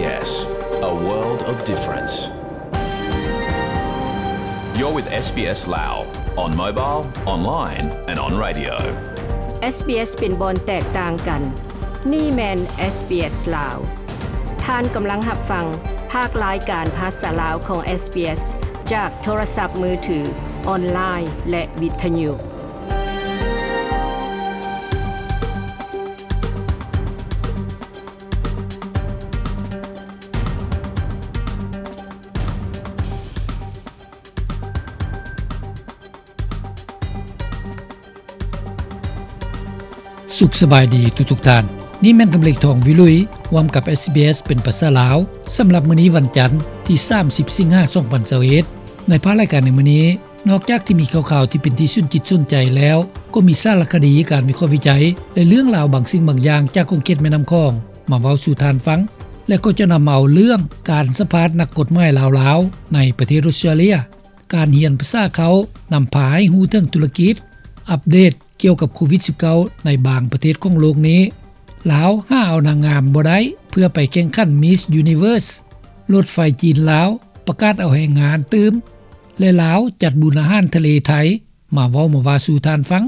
SBS, a world of difference. You're with SBS Lao on mobile, online and on radio. SBS ເປັນບ່ອນແຕກຕ່າງກັນ. ນີ້ແມ່ນ SBS ລາວ. ທ່ານກຳລັງຮັບຟັງພາກລາຍການພາສາລາວຂອງ SBS ຈາກໂທລະສັບມືຖື, ອອນລາຍ ແລະ ວິທະຍຸ. ສຸກສະບາຍດີທຸກໆທ່ານ. ນີ້ແມ່ນກຳເລັກ ທອງວິລຸຍ ຮ່ວມກັບ SBS ເປັນພາສາລາວ ສຳລັບມື້ນີ້ວັນຈັນ ທີສາມສິບ ສິງຫາ ສອງພັນຊາວເອັດ. ໃນພາກລາຍການໃນມື້ນີ້, ນອກຈາກທີ່ມີຂ່າວໆທີ່ເປັນທີ່ສົນຈິດສົນໃຈແລ້ວ, ກໍມີສາລະຄະດີ, ການວິເຄາະວິໄຈ ແລະ ເລື່ອງລາວບາງສິ່ງບາງຢ່າງຈາກຂົງເຂດແມ່ນ້ຳຂອງ ມາເວົ້າສູ່ທ່ານຟັງ ແລະ ກໍຈະນຳເອົາເລື່ອງການສຳພາດນັກກົດໝາຍລາວໆ ໃນປະເທດອົດສະຕຣາເລຍ, ການຮຽນພາສາເຄົ້ານຳພາໃຫ້ຮູ້ເຖິງທຸລະກິດ, ອັບເດດກ່ຽວກັບໂຄວິດສິບເກົ້າ ໃນບາງປະເທດຂອງໂລກນີ້, ລາວຫາເອົານາງງາມບໍ່ໄດ້ເພື່ອໄປແຂ່ງຂັນ Miss Universe, ລົດໄຟຈີນລາວປະກາດເອົາແຮງງານຕື່ມ ແລະ ລາວຈັດບຸນອາຫານທະເລໄທ ມາເວົ້າມາວ່າສູ່ທ່ານຟັງ.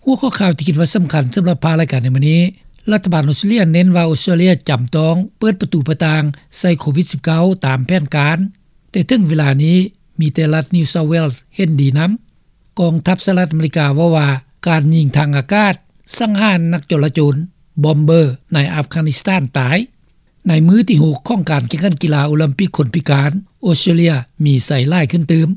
ຫົວຂໍ້ຂ່າວທີ່ຄິດວ່າສຳຄັນສຳລັບພາກລາຍການໃນມື້ນີ້, ລັດຖະບານອົດສະຕຣາເລຍເນັ້ນວ່າອົດສະຕຣາເລຍຈຳຕ້ອງເປີດປະຕູປະຕ່າງໃສ່ໂຄວິດສິບເກົ້າ ຕາມແຜນການ, ແຕ່ເຖິງເວລານີ້ມີແຕ່ລັດ New South Wales ເຫັນດີນຳ. ກອງທັບສະຫະລັດອາເມລິກາເວົ້າວ່າ ການຍິງທາງອາກາດສັງຫານນັກຈໍລະຈົນ ບອມເບີ ໃນອັຟການິສຖານຕາຍ. ໃນມື້ທີຫົກຂອງການແຂ່ງຂັນກິລາໂອລິມປິກຄົນພິການ, ອົດສະຕຣາເລຍມີໄຊຫຼາຍຂຶ້ນຕື່ມ.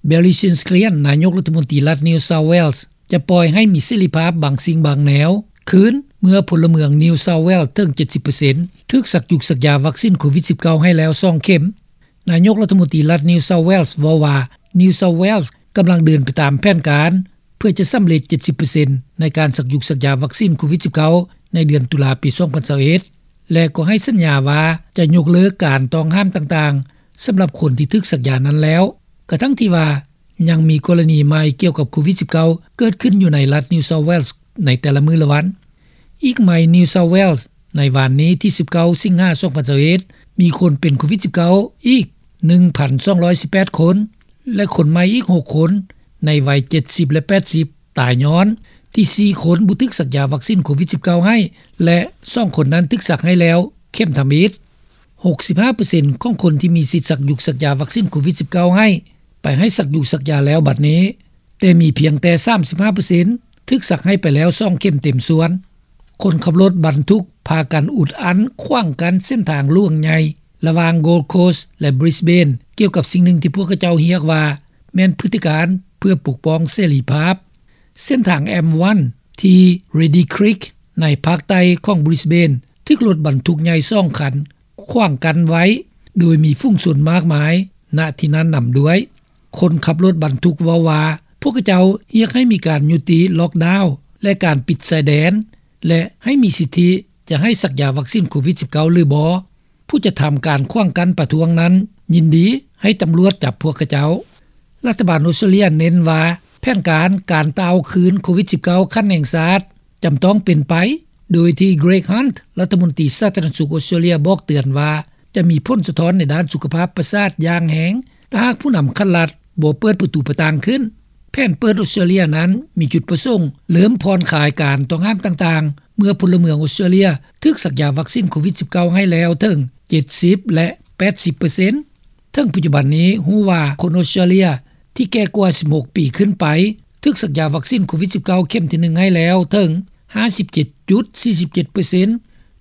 Boris Johnson ນາຍົກລັດຖະມົນຕີລັດ New South Wales ຈະປ່ອຍໃຫ້ມີເສລີພາບບາງສິ່ງບາງແນວຄືນ ເມື່ອພົນລະເມືອງ New South Wales ເຖິງເຈັດສິບເປີເຊັນ ຖືກສັກຢຸກສັກຢາວັກຊິນໂຄວິດສິບເກົ້າ ໃຫ້ແລ້ວສອງເຂັມ. ນາຍົກລັດຖະມົນຕີລັດ New South Wales ເວົ້າວ່າ New South Wales ກຳລັງເດີນໄປຕາມແຜນການ ເພື່ອຈະສຳເລັດເຈັດສິບເປີເຊັນ ໃນການສັກຢຸກສັກຢາວັກຊິນໂຄວິດສິບເກົ້າ ໃນເດືອນຕຸລາປີສອງພັນຊາວເອັດ ແລະ ກໍໃຫ້ສັນຍາວ່າຈະຍົກເລີກການຕ້ອງຫ້າມຕ່າງໆ ສຳລັບຄົນທີ່ຖືກສັກຢານັ້ນແລ້ວ, ກະທັ່ງທີ່ວ່າຍັງມີກໍລະນີໃໝ່ກ່ຽວກັບໂຄວິດສິບເກົ້າ ເກີດຂຶ້ນຢູ່ໃນລັດ New South Wales ໃນແຕ່ລະມື້ລະວັນ. ອີກໃໝ່ New South Wales ໃນວານນີ້ທີສິບເກົ້າ ສິງຫາ ສອງພັນຊາວເອັດ ມີຄົນເປັນໂຄວິດສິບເກົ້າ ອີກໜຶ່ງພັນສອງຮ້ອຍສິບແປດຄົນ ແລະ ຄົນໃໝ່ອີກຫົກຄົນໃນໄວເຈັດສິບ ແລະ ແປດສິບ ຕາຍຍ້ອນທີ່ສີ່ຄົນບໍ່ຖືກສັກຢາວັກຊິນໂຄວິດສິບເກົ້າ ໃຫ້ ແລະ ສອງຄົນນັ້ນຖືກສັກໃຫ້ແລ້ວເຂັມທຳອິດ. ຫົກສິບຫ້າເປີເຊັນຂອງຄົນທີ່ມີສິດສັກຢຸກສັກຢາວັກຊິນໂຄວິດສິບເກົ້າ ໃຫ້ ໄປໃຫ້ສັກຢຸກສັກຢາແລ້ວບັດນີ້, ແຕ່ມີພຽງແຕ່ສາມສິບຫ້າເປີເຊັນຖືກສັກໃຫ້ໄປແລ້ວສອງເຂັມເຕັມສ່ວນ. ຄົນຂັບລົດບັນທຸກພາກັນອຸດອັ່ນຂວາງກັ້ນເສັ້ນທາງຫຼວງໃຫຍ່ລະຫວ່າງ Gold Coast ແລະ Brisbane ກ່ຽວກັບສິ່ງໜຶ່ງທີ່ພວກເຂົາເຈົ້າຮຽກວ່າແມ່ນພຶດຕິການເພື່ອປົກປ້ອງເສລີພາບ. ເສັ້ນທາງ M one ທີ່ Reedy Creek ໃນພາກໃຕ້ຂອງ Brisbane ຖືກລົດບັນທຸກໃຫຍ່ສອງຄັນຂວາງກັ້ນໄວ້ ໂດຍມີຝູງຊົນມາກມາຍ ນະທີ່ນັ້ນນຳດ້ວຍ. ຄົນຂັບລົດບັນທຸກເວົ້າວ່າ ພວກເຂົາເຈົ້າຮຽກໃຫ້ມີການຍຸຕິລັອກດາວ ແລະ ການປິດຊາຍແດນ ແລະ ໃຫ້ມີສິດທິຈະໃຫ້ສັກຢາວັກຊິນໂຄວິດສິບເກົ້າ ຫຼືບໍ່. ຜູ້ຈັດທຳການຂວາງກັ້ນປະທ້ວງນັ້ນຍິນດີໃຫ້ຕຳຫຼວດຈັບພວກເຂົາເຈົ້າ. ລັດຖະບານອົດສະຕຣາເລຍເນັ້ນວ່າ ແຜນການການຕ່າວຄືນໂຄວິດສິບເກົ້າ ຂັ້ນແຫ່ງຊາດຈຳຕ້ອງເປັນໄປ, ໂດຍທີ່ Greg Hunt ລັດຖະມົນຕີສາທາລະນະສຸກອົດສະຕຣາເລຍບອກເຕືອນວ່າ ຈະມີຜົນສະທ້ອນໃນດ້ານສຸຂະພາບປະສາດຢ່າງແຮງ ຖ້າຫາກຜູ້ນຳຂັ້ນລັດບໍ່ເປີດປະຕູປະຕ່າງຂຶ້ນ. ແຜນເປີດອົດສະຕຣາເລຍນັ້ນມີຈຸດປະສົງເລີ່ມຜ່ອນຄາຍການຕ້ອງຫ້າມຕ່າງໆ ເມື່ອພົນລະເມືອງອົດສະຕຣາເລຍຖືກສັກຢາວັກຊິນໂຄວິດສິບເກົ້າ ໃຫ້ແລ້ວເຖິງເຈັດສິບ ແລະ ແປດສິບເປີເຊັນ. ເຖິງປັດຈຸບັນນີ້ຮູ້ວ່າຄົນອົດສະຕຣາເລຍທີ່ແກ່ກວ່າສິບຫົກປີຂຶ້ນໄປ ຖືກສັກຢາວັກຊິນໂຄວິດສິບເກົ້າ ເຂັມທີໜຶ່ງໃຫ້ແລ້ວເຖິງຫ້າສິບເຈັດຈຸດສີ່ສິບເຈັດເປີເຊັນ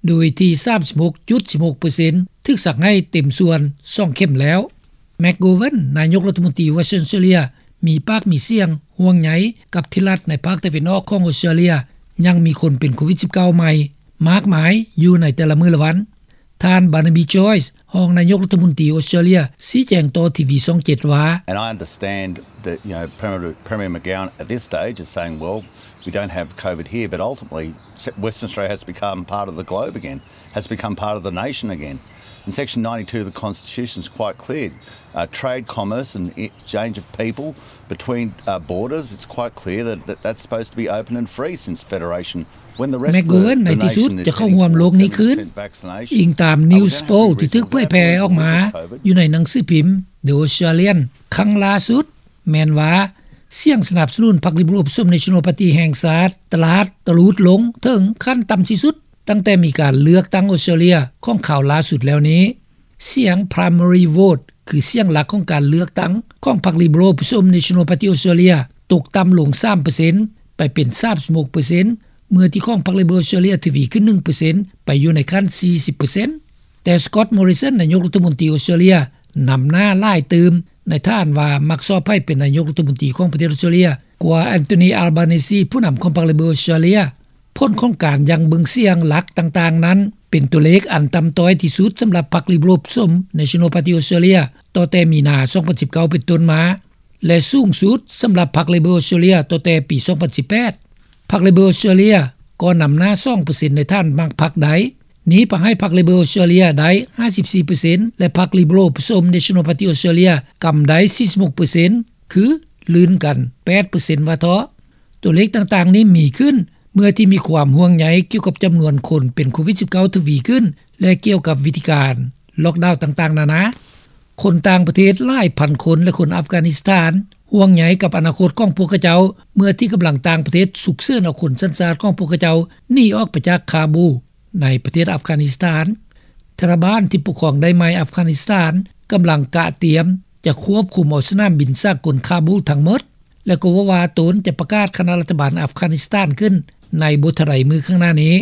ໂດຍທີ່ສາມສິບຫົກຈຸດສິບຫົກເປີເຊັນຖືກສັກໃຫ້ເຕັມສ່ວນສອງເຂັມແລ້ວ. McGowan ນາຍົກລັດຖະມົນຕີວັດສະຕຣາເລຍ ມີປາກມີສຽງຫ່ວງໃຍກັບທີ່ລັດໃນພາກຕາເວັນອອກຂອງອົດສະຕຣາເລຍ ຍັງມີຄົນເປັນໂຄວິດສິບເກົ້າ ໃໝ່ມາກມາຍຢູ່ໃນແຕ່ລະມື້ລະວັນ. ທ່ານ Barnaby Joyce ຮອງນາຍົກລັດຖະມົນຕີອົດສະຕຣາເລຍ ຊີ້ແຈງຕໍ່ທີວີຊ່ອງເຈັດວ່າ And I understand that, you know, Premier, Premier McGowan at this stage is saying, "Well, we don't have COVID here," but ultimately, Western Australia has become part of the globe again, has become part of the nation again. In section ninety-two of the Constitution, it's quite clear. Uh, trade, commerce and exchange of people between uh, borders, it's quite clear that, that that's supposed to be open and free since federation. When the rest of the, the nation is heading towards seventy percent vaccination, ແມັກໂກເວັນໃນທີ່ສຸດຈະເຂົ້າຮ່ວມໂລກນີ້ຄືນ, ອີງຕາມ News Poll ທີ່ຖືກເຜີຍແຜ່ອອກມາຢູ່ໃນໜັງສືພິມ The Australian ຄັ້ງລ່າສຸດ ແມ່ນວ່າ ສຽງສະໜັບສະໜູນພັກ Liberal ປະສົມ National Party ແຫ່ງຊາດ ຕະຫຼາດຕະຫຼຸດລົງເຖິງຂັ້ນຕ່ຳທີ່ສຸດ ຕັ້ງແຕ່ມີການເລືອກຕັ້ງອອສເຕຣເລຍຂອງຄາວລ່າສຸດແລ້ວນີ້. ສຽງ Primary Vote ຄືສຽງຫຼັກຂອງການເລືອກຕັ້ງຂອງພັກ Liberal ປະສົມ National Party Australia ຕົກຕ່ຳລົງສາມເປີເຊັນ ໄປເປັນສາມສິບຫົກເປີເຊັນ ເມື່ອທີ່ຂອງພັກ Labor Australia ທະວີຂຶ້ນໜຶ່ງເປີເຊັນ ໄປຢູ່ໃນຂັ້ນສີ່ສິບເປີເຊັນ. ແຕ່ Scott Morrison ນາຍົກລັດຖະມົນຕີອອສເຕຣເລຍ ນຳໜ້າຫຼາຍຕື່ມ ໃນຖານວ່າມັກຊອບໃຫ້ເປັນນາຍົກລັດຖະມົນຕີຂອງປະເທດອອສເຕຣເລຍ ກວ່າ Anthony Albanese ຜູ້ນຳຂອງພັກ Labor Australia. ຜົນຂອງການຢັ້ງເບິ່ງສຽງຫຼັກຕ່າງໆນັ້ນ ເປັນຕົວເລກອັນຕ່ຳຕ້ອຍທີ່ສຸດສຳລັບພັກ Liberal ປະສົມ National Party Australia ຕໍ່ແຕ່ມີນາ ສອງພັນສິບເກົ້າ ເປັນຕົ້ນມາ ແລະ ສູງສຸດສຳລັບພັກ Labor Australia ຕໍ່ແຕ່ປີ ສອງພັນສິບແປດ. ພັກ Labor Australia ກໍນຳໜ້າສອງເປີເຊັນ ໃນຖານມັກພັກໃດ ໜີໄປໃຫ້ພັກ Labor Australia ໄດ້ຫ້າສິບສີ່ເປີເຊັນ ແລະ ພັກ Liberal ປະສົມ National Party Australia ກຳໄດ້ສີ່ສິບຫົກເປີເຊັນ ຄືລື່ນກັນແປດເປີເຊັນວ່າເທາະ. ຕົວເລກຕ່າງໆນີ້ມີຂຶ້ນ ເມື່ອທີ່ມີຄວາມຫ່ວງໃຍກ່ຽວກັບຈຳນວນຄົນເປັນໂຄວິດສິບເກົ້າ ທະວີຂຶ້ນ ແລະ ກ່ຽວກັບວິທີການ lockdown ຕ່າງໆນານາ. ຄົນຕ່າງປະເທດຫຼາຍພັນຄົນ ແລະ ຄົນອັຟການິສຖານ ຫ່ວງໃຍກັບອະນາຄົດຂອງພວກເຂົາເຈົ້າ ເມື່ອທີ່ກຳລັງຕ່າງປະເທດສຸກເສີນເອົາຄົນສັນຊາດຂອງພວກເຂົາເຈົ້າໜີອອກໄປຈາກຄາບູ ໃນປະເທດອັຟການິສຖານ. ທາລະບານທີ່ປົກຄອງໄດ້ໃໝ່ອັຟການິສຖານ ກຳລັງກະຕຽມຈະຄວບຄຸມເອົາສະໜາມບິນສາກົນຄາບູທັງໝົດ ແລະ ກໍເວົ້າວ່າຕົນຈະປະກາດຄະນະລັດຖະບານອັຟການິສຖານຂຶ້ນໃນບໍ່ເທົ່າໃດມື້ຂ້າງໜ້ານີ້.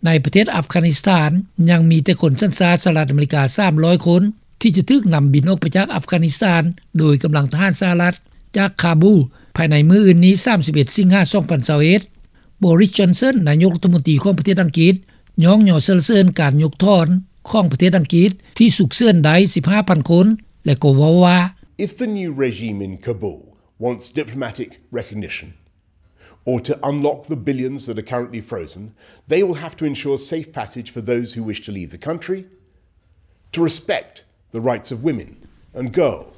ໃນປະເທດອັຟການິສຖານ ຍັງມີແຕ່ຄົນສັນຊາດສະຫະລັດອາເມລິກາສາມຮ້ອຍຄົນ ທີ່ຈະຖືກນຳບິນອອກໄປຈາກອັຟການິສຖານ ໂດຍກຳລັງທະຫານສະຫະລັດ ຈາກຄາບູ ພາຍໃນມື້ອື່ນນີ້ ສາມສິບເອັດ ສິງຫາ ສອງພັນຊາວເອັດ. Boris Johnson ນາຍົກລັດຖະມົນຕີຂອງປະເທດອັງກິດ ຍ້ອງຍໍສັນລະເສີນການຍົກຖອນຂອງປະເທດອັງກິດ ທີ່ສຸກເສີນໄດ້ສິບຫ້າພັນຄົນ ແລະ ກໍເວົ້າວ່າ If the new regime in Kabul wants diplomatic recognition, or to unlock the billions that are currently frozen, they will have to ensure safe passage for those who wish to leave the country, to respect the rights of women and girls,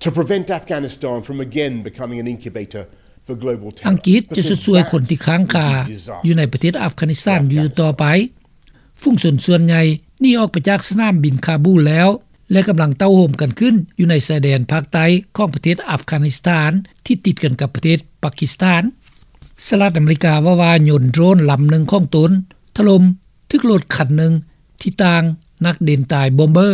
to prevent Afghanistan from again becoming an incubator for global terror. ອັງກິດຈະຊົດຊ່ວຍຄົນທີ່ຄ້າງຄາຢູ່ໃນປະເທດອັຟການິສຖານຢູ່ຕໍ່ໄປ. ຝູງຊົນສ່ວນໃຫຍ່ໜີອອກໄປຈາກສະໜາມບິນຄາບູແລ້ວ ແລະ ກຳລັງເຕົ້າໂຮມກັນຂຶ້ນຢູ່ໃນຊາຍແດນພາກໃຕ້ຂອງປະເທດອັຟການິສຖານ ທີ່ຕິດກັນກັບປະເທດປາກິສຖານ. ສະຫະລັດອາເມລິກາເວົ້າວ່າຍົນໂດຣນລຳໜຶ່ງຂອງຕົນຖະຫຼົ່ມຖືກລົດຄັນໜຶ່ງທີ່ຕ່າງນັກເດັ່ນຕາຍ Bomber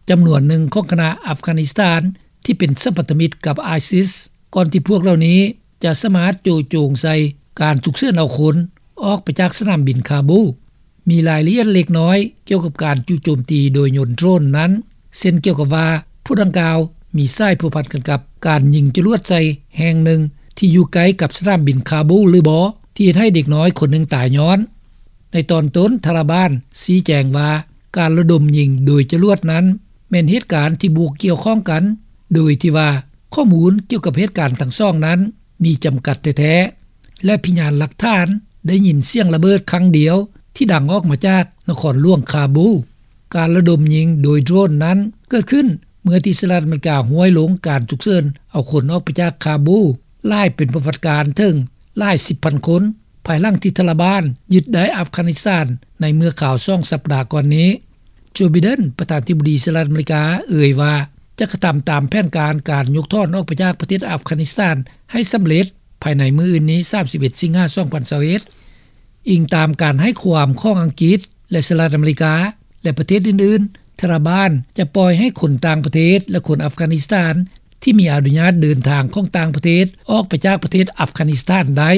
ຈຳນວນໜຶ່ງຂອງຄະນະອັຟການິສຖານ ທີ່ເປັນສຳພັນທະມິດກັບ ISIS ກ່ອນທີ່ພວກເຫຼົ່ານີ້ຈະສາມາດໂຈະໂຈງໃສ່ການສຸກເສີນເອົາຄົນ ອອກໄປຈາກສະໜາມບິນຄາບູ. ມີລາຍລະອຽດເລັກນ້ອຍກ່ຽວກັບການຈຸໂຈມຕີໂດຍຍົນໂດຣນນັ້ນ ເຊັ່ນກ່ຽວກັບວ່າ ພວກດັ່ງກ່າວມີສາຍພົວພັນກັນກັບການຍິງຈະຫຼວດໃສ່ແຫ່ງໜຶ່ງທີ່ຢູ່ໃກ້ກັບສະໜາມບິນຄາບູຫຼືບໍ່ ທີ່ເຮັດໃຫ້ເດັກນ້ອຍຄົນໜຶ່ງຕາຍຍ້ອນ. ໃນຕອນຕົ້ນ ທາລະບານຊີ້ແຈງວ່າ ການລະດົມຍິງໂດຍຈະຫຼວດນັ້ນ ແມ່ນເຫດການທີ່ບໍ່ກ່ຽວຂ້ອງກັນ ໂດຍທີ່ວ່າຂໍ້ມູນກ່ຽວກັບເຫດການທັງສອງນັ້ນມີຈຳກັດແທ້ໆ ແລະ ພະຍານຫຼັກຖານໄດ້ຍິນສຽງລະເບີດຄັ້ງດຽວທີ່ດັງອອກມາຈາກນະຄອນຫຼວງຄາບູ. ການລະດົມຍິງໂດຍໂດຣນນັ້ນເກີດຂຶ້ນເມື່ອທີ່ສະຫະລັດອາເມລິກາຫ້ວຍລົງການສຸກເສີນເອົາຄົນອອກໄປຈາກຄາບູຫຼາຍເປັນປະຫວັດການເຖິງຫຼາຍສິບພັນຄົນ ພາຍຫຼັງທີ່ທາລະບານຍຶດໄດ້ອັຟການິສຖານໃນເມື່ອຄາວສອງສັບດາກ່ອນນີ້. Joe Biden ປະທານາທິບໍດີສະຫະລັດອາເມລິກາເອີ່ຍວ່າ ຈະກະທຳຕາມແຜນການການຍົກຖອນອອກໄປຈາກປະເທດອັຟການິສຖານໃຫ້ສຳເລັດພາຍໃນມື້ອື່ນນີ້ ສາມສິບເອັດ ສິງຫາ ສອງພັນຊາວເອັດ. ອີງຕາມການໃຫ້ຄວາມຂອງອັງກິດ ແລະ ສະຫະລັດອາເມລິກາ ແລະ ປະເທດອື່ນໆ, ທາລະບານຈະປ່ອຍໃຫ້ຄົນຕ່າງປະເທດ ແລະ ຄົນອັຟການິສຖານທີ່ມີອະນຸຍາດເດີນທາງຂອງຕ່າງປະເທດອອກໄປຈາກປະເທດອັຟການິສຖານໄດ້.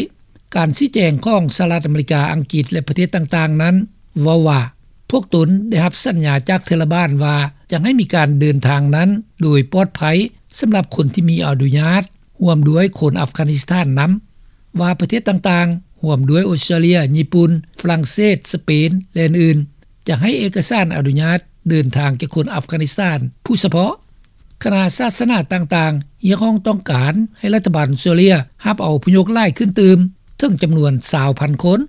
ການຊີ້ແຈງຂອງສະຫະລັດອາເມລິກາ, ອັງກິດ ແລະ ປະເທດຕ່າງໆນັ້ນເວົ້າວ່າ ພວກຕົນໄດ້ຮັບສັນຍາຈາກທາລະບານວ່າຈະໃຫ້ມີການເດີນທາງນັ້ນໂດຍປອດໄພສຳລັບຄົນທີ່ມີອະນຸຍາດ, ຮ່ວມດ້ວຍຄົນອັຟການິສຖານນຳ, ວ່າປະເທດຕ່າງໆ ຮ່ວມດ້ວຍອົດສະຕຣາເລຍ, ຍີ່ປຸ່ນ, ຝຣັ່ງເສດ, ສະເປນ ແລະ ອື່ນໆ ຈະໃຫ້ເອກະສານອະນຸຍາດເດີນທາງແກ່ຄົນອັຟການິສຖານຜູ້ສະເພາະ. ຄະນະສາສະໜາຕ່າງໆຮຽກຮ້ອງຕ້ອງການໃຫ້ລັດຖະບານອົດສະຕຣາເລຍຮັບເອົາອົບພະຍົບຫຼາຍຂຶ້ນຕື່ມເຖິງຈຳນວນຊາວພັນຄົນ.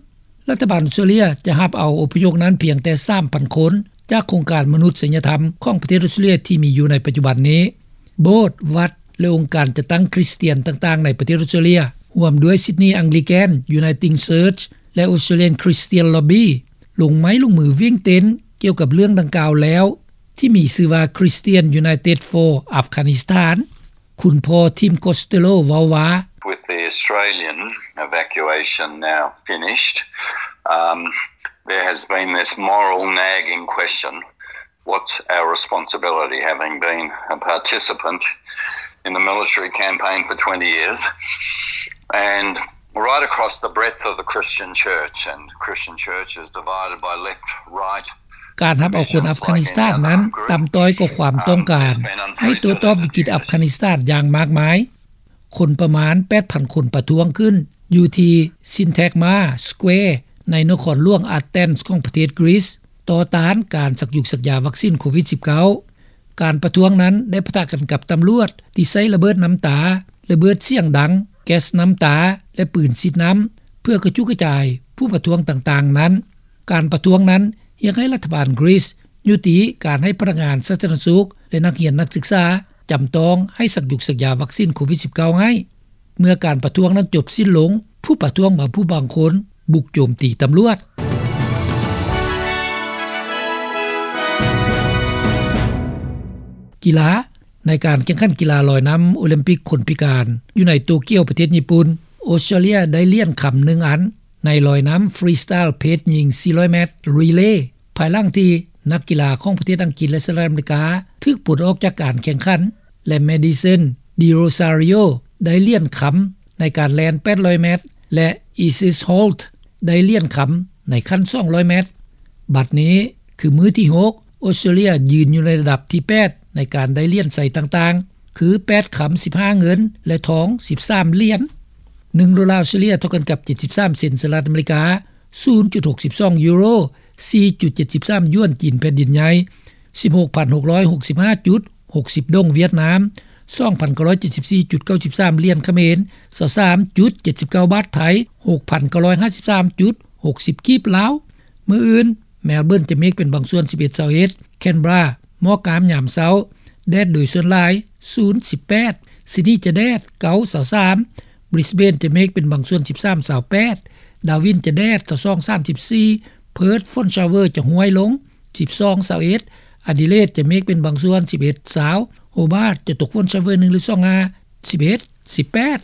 ລັດຖະບານອົດສະຕຣາເລຍຈະຮັບເອົາອົບພະຍົບນັ້ນພຽງແຕ່ສາມພັນຄົນ ຈາກໂຄງການມະນຸດສະຍະທຳຂອງປະເທດອອສເຕຣເລັຽທີ່ມີຢູ່ໃນປັດຈຸບັນນີ້. ໂບດ, ວັດ ແລະ ອົງການຈັດຕັ້ງຄຣິສຕຽນຕ່າງໆໃນປະເທດອອສເຕຣເລັຽ ຮ່ວມດ້ວຍ Sydney Anglican, Uniting Church ແລະ Australian Christian Lobby ລົງໄມ້ລົງມືວຽງເຕັນກ່ຽວກັບເລື່ອງດັ່ງກ່າວແລ້ວ ທີ່ມີຊື່ວ່າ Christian United for Afghanistan. ຄຸນພໍ່ Tim Costello ເວົ້າວ່າ: With the Australian evacuation now finished, um, there has been this moral nagging question: what's our responsibility, having been a participant in the military campaign for twenty years and right across the breadth of the Christian church, and Christian church is divided by left, right, ການຮັບເອົາຄົນອັຟການິສຖານນັ້ນ ຕ່ຳຕ້ອຍກວ່າຄວາມຕ້ອງການ ໃຫ້ໂຕ້ຕອບວິກິດອັຟການິສຖານຢ່າງມາກມາຍ. ຄົນປະມານ ແປດພັນ ຄົນປະທ້ວງຂຶ້ນຢູ່ທີ່ Syntagma Square ໃນນະຄອນຫຼວງ Athens ຂອງປະເທດ Greece ຕໍ່ຕ້ານການສັກຍຸກສັກຢາວັກຊິນໂຄວິດ-19. ການປະທ້ວງນັ້ນໄດ້ປະທະກັນກັບຕຳຫຼວດທີ່ໃຊ້ລະເບີດນ້ຳຕາ, ລະເບີດສຽງດັງ, ແກັສນ້ຳຕາ ແລະ ປືນສີດນ້ຳ ເພື່ອກະຈຸກະຈາຍຜູ້ປະທ້ວງຕ່າງໆນັ້ນ. ການປະທ້ວງນັ້ນຮຽກໃຫ້ລັດຖະບານ Greece ຍຸຕິການໃຫ້ພະນັກງານສາທາລະນະສຸກ ແລະ ນັກຮຽນນັກສຶກສາ ຈຳຕ້ອງໃຫ້ສັກຍຸກສັກຢາວັກຊິນໂຄວິດ-19 ໃຫ້. ເມື່ອການປະທ້ວງນັ້ນຈົບສິ້ນລົງ, ຜູ້ປະທ້ວງບາງຜູ້ບາງຄົນບຸກໂຈມຕີຕຳຫຼວດ. ກິລາ. ໃນການແຂ່ງຂັນກິລາລອຍນ້ຳໂອລິມປິກຄົນພິການ ຢູ່ໃນໂຕກຽວ ປະເທດຍີ່ປຸ່ນ, ອອສເຕຣເລັຽໄດ້ຫຼຽນຄຳໜຶ່ງອັນ ໃນລອຍນ້ຳຟຣີສະຕາຍເພສຍິງສີ່ຮ້ອຍແມັດຣີເລ ພາຍຫຼັງທີ່ນັກກິລາຂອງປະເທດອັງກິດ ແລະ ສະຫະລັດອາເມລິກາ ຖືກປົດອອກຈາກການແຂ່ງຂັນ ແລະ Madison De Rosario ໄດ້ຫຼຽນຄຳໃນການແລ່ນແປດຮ້ອຍແມັດ ແລະ Isis Holt ໄດ້ຫຼຽນຄຳໃນຂັ້ນສອງຮ້ອຍແມັດ. ບັດນີ້ຄືມື້ທີຫົກ ອອສເຕຣເລັຽຢືນຢູ່ໃນລະດັບທີແປດ ໃນການໄດ້ຫຼຽນໄຊຕ່າງໆ ຄື ແປດຄຳ ສິບຫ້າເງິນ ແລະ ທອງ ສິບສາມຫຼຽນ. ໜຶ່ງໂດລາອອສເຕຣເລັຽເທົ່າກັນກັບ ເຈັດສິບສາມເຊັນສະຫະລັດອາເມລິກາ, ສູນຈຸດຫົກສິບສອງຢູໂຣ, ສີ່ຈຸດເຈັດສິບສາມຢວນຈີນແຜ່ນດິນໃຫຍ່, ສິບຫົກພັນຫົກຮ້ອຍຫົກສິບຫ້າຈຸດຫົກສິບດົງຫວຽດນາມ, ສອງພັນເກົ້າຮ້ອຍເຈັດສິບສີ່ຈຸດເກົ້າສິບສາມຫຼຽນຂະເໝນ, ຊາວສາມຈຸດເຈັດສິບເກົ້າບາດໄທ, ຫົກພັນເກົ້າຮ້ອຍຫ້າສິບສາມຈຸດຫົກສິບກີບລາວ. ມື້ອື່ນ ແມລເບີນຈະເມກເປັນບາງສ່ວນ ສິບເອັດ ຊາວເອັດ, ແຄນເບຣາ ໝອກງາມຍາມເຊົ້າ ແດດໂດຍສ່ວນຫຼາຍ ສູນ ສິບແປດ, ຊິດນີຈະແດດ ເກົ້າ ຊາວສາມ, ບຣິສເບນຈະເມກເປັນບາງສ່ວນ ສິບສາມ ຊາວແປດ, ດາວິນຈະແດດ ຊາວສອງ ສາມສິບສີ່, ເພີດ ຝົນຊາວເວີຈະຫ້ວຍລົງ ສິບສອງ ຊາວເອັດ, ອາດີເລດຈະເມກເປັນບາງສ່ວນ ສິບເອັດ ຊາວ, ໂຮບາດຈະຕົກຝົນຊາວເວີໜຶ່ງ ຫຼື ສອງ ຫ້າ ສິບເອັດ ສິບແປດ.